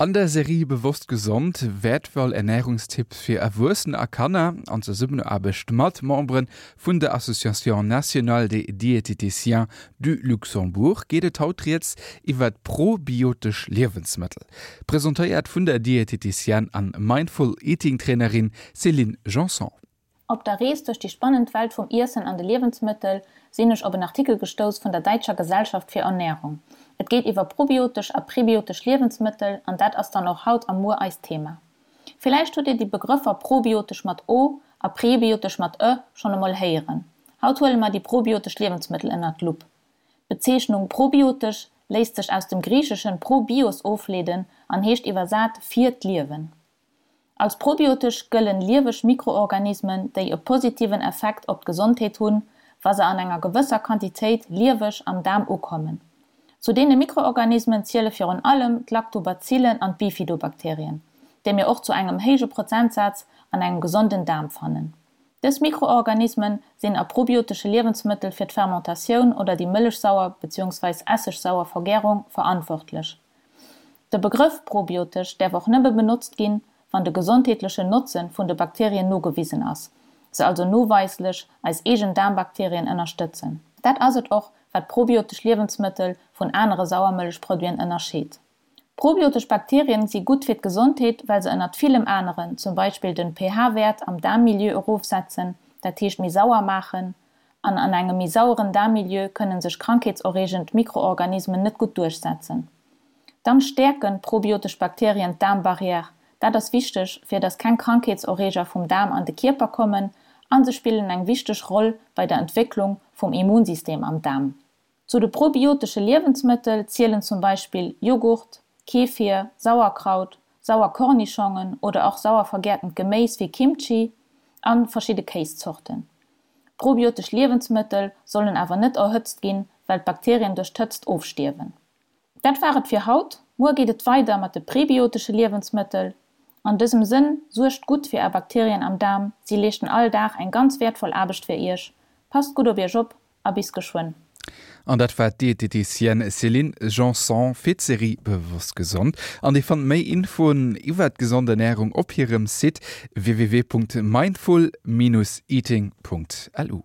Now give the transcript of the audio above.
An der Serie Bewosst gesond, wäertvoll Ernärungstipps fir Erwuessener a Kanner, an Zesummenaarbecht mat Membere vun der Association nationale des diététiciens du Luxembourg, geet et haut rieds iwwert probiotesch Liewensmëttel. Presentéiert vun der Diététicienne an Mindful Eating Trainerin Céline Janson. Op der Rees duerch déi spannend Welt vum Iessen an de Liewensmëttel sinn ech op en Artikel gestouss vun der Däitscher Gesellschaft fir Ernährung. Et geet iwwer probiotesch a prebiotesch Liewensmëttel an dat ass dann och haut a muer eist Thema. Villäicht hutt Dir déi Begrëffer probiotesch mat o a prebiotesch mat ë schonn emol héieren. Haut huele mer déi probiotesch Liewensmëttel ënnert d'Lupp. D'Bezeechnung probiotesch léisst sech aus dem Griicheschen pro bios ofleeden an heescht iwwersat fir d'Liewen. Als probiotesch gëllen lieweg Mikroorganismen, déi e positiven Effekt op d'Gesondheet hunn, wa se an enger gewësser Quantitéit lieweg am Daarm ukommen. Zu deene Mikroorganismen ziele virun allem d'Lactobazillen an d'Bifidobakterien, déi mir och zu engem héije Prozentsaz an engem gesonden Daarm fannen. Dës Mikroorganismen sinn a probiotesche Liewensmëttel fir d'Fermentatioun oder déi mëllechsauer bzw. Essegsauer Vergärung verantwortlech. De Begrëff probiotesch däerf och nëmme benotzt ginn, wann de gesondheetlechen Notzen vun de Bakterien nogewisen ass, se also noweislech eis eegen Daarmbakterien ënnerstëtzen. Dat ass et och, wat probiotesch Liewensmëttel vun anere Sauermëllechproduiten ënnerscheet. Probiotesch Bakterien si gutt fir d'Gesondheet, well se ënnert villem aneren zum Beispill den pH-Wäert am Daarmmilieu erofsetzen, dat heescht méi sauer maachen, An an engem méi saueren Daarmmilieu kënnen sech krankheetserreegend Mikroorganismen net gutt duerchsetzen. Dann stäerken probiotesch Bakterien d'Daarmbarrière. Dat ass wichteg, fir dass keng Krankheetserreeger vum Daarm an de Kierper kommen, an se spillen eng wichteg Roll bei der Entwécklung vum Immunsystem am Daarm. Zu de probiotesche Liewensmëttel zielen zum Beispill Joghurt, Kefir, Sauerkraut, sauer Kornischongen oder och sauer vergärtent Geméis wéi Kimchi an verschidde Kéiszorten. Probiotesch Liewensmëttel sollen awer net erhëtzt ginn, well d'Bakterien duerch d'Hëtzt ofstierwen. Dat war et fir haut, muer geet et weider mat de prebiotesche Liewensmëttel. An dësem Sënn, suergt gutt fir är Bakterien am Daarm, si leeschten all Dag eng ganz wäertvoll Aarbecht fir iech. Passt gutt op iech op a bis geschwënn. An dat war d'Dieteticienne Céline Janson fir d'Serie Bewosst Gesond. An Dir fannt méi Infoen iwwert gesond Ernärung op hirem Site www.mindful-eating.lu.